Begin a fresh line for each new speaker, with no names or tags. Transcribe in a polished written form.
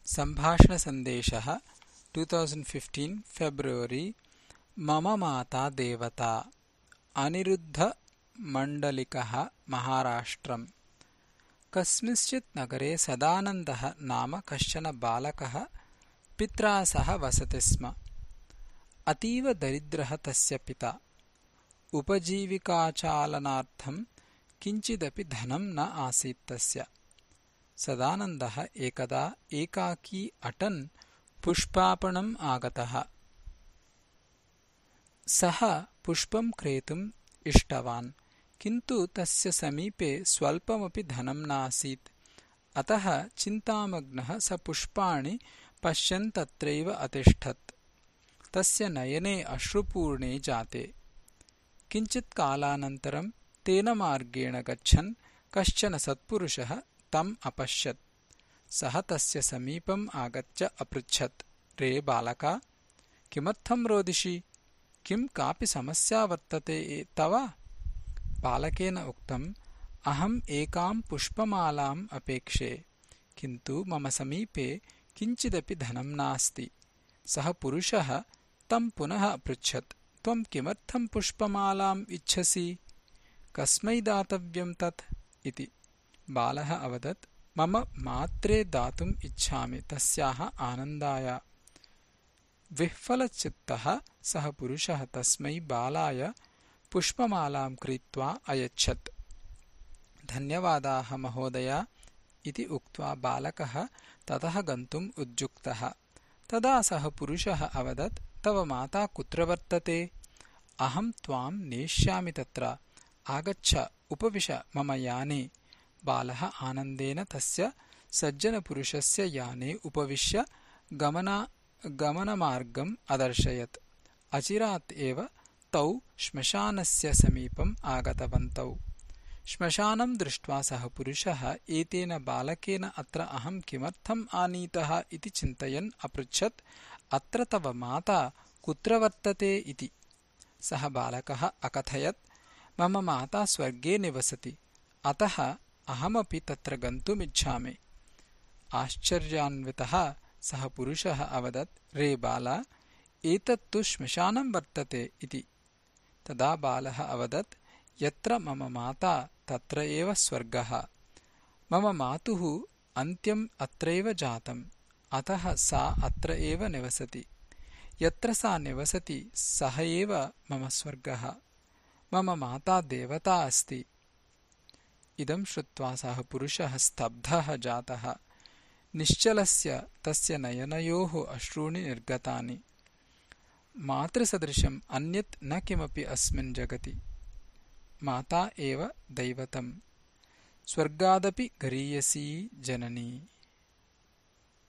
सम्भाषणसन्देशः 2015 February मम माता देवता अनिरुद्धमण्डलिकः महाराष्ट्रम्। कस्मिंश्चित् नगरे सदानन्दः नाम कश्चन बालकः पित्रा सह वसति स्म। अतीव दरिद्रः तस्य पिता। उपजीविकाचालनार्थं किञ्चिदपि धनं न आसीत् तस्य। सदानन्दः एकदा एकाकी अटन् पुष्पापणम् आगतः। सः पुष्पं क्रेतुम् इष्टवान्, किन्तु तस्य समीपे स्वल्पमपि धनं नासीत्। अतः चिन्तामग्नः स पुष्पाणि पश्यन् तत्रैव अतिष्ठत्। तस्य नयने अश्रुपूर्णे जाते। किञ्चित् कालानन्तरं तेन मार्गेण गच्छन् कश्चन सत्पुरुषः तम् अपश्यत्। सः तस्य समीपम् आगत्य अपृच्छत्, रे बालका, किमर्थं रोदिषि? किं कापि समस्या वर्तते तव? बालकेन उक्तम्, अहम् एकां पुष्पमालाम् अपेक्षे, किन्तु मम समीपे किञ्चिदपि धनं नास्ति। सः पुरुषः तं पुनः अपृच्छत्, त्वं किमर्थं पुष्पमालाम् इच्छसि? कस्मै दातव्यं तत् इति। बालः अवदत्, मम मात्रे दातुम् इच्छामि, तस्याः आनन्दाय। विह्वलचित्तः सः पुरुषः तस्मै बालाय पुष्पमालां क्रीत्वा अयच्छत्। धन्यवादाः महोदय इति उक्त्वा बालकः ततः गन्तुम् उद्युक्तः। तदा सः पुरुषः अवदत्, तव माता कुत्र वर्तते? अहं त्वां नेष्यामि तत्र। आगच्छ, उपविश मम याने। बालः आनन्देन तस्य सज्जनपुरुषस्य याने उपविश्य गमनमार्गम् अदर्शयत्। अचिरात् एव तौ श्मशानस्य समीपम् आगतवन्तौ। श्मशानं दृष्ट्वा सः पुरुषः एतेन बालकेन अत्र अहं किमर्थम् आनीतः इति चिन्तयन् अपृच्छत्, अत्र तव माता कुत्र वर्तते इति। सः बालकः अकथयत्, मम माता स्वर्गे निवसति, अतः अहमपि तत्र गन्तुमिच्छामि। आश्चर्यान्वितः सः पुरुषः अवदत्, रे बाल, एतत्तु श्मशानं वर्तते इति। तदा बालः अवदत्, यत्र मम माता तत्र एव स्वर्गः। मम मातुः अन्त्यम् अत्रैव जातम्, अतः सा अत्र एव निवसति। यत्र सा निवसति सः एव मम स्वर्गः। मम माता देवता अस्ति। इदं श्रुत्वा सः पुरुषः स्तब्धः जातः। निश्चलस्य तस्य नयनयोः अश्रूणि निर्गतानि। मातृसदृशम् अन्यत् न किमपि अस्मिन् जगति। माता एव दैवतम्। स्वर्गादपि गरीयसी जननी।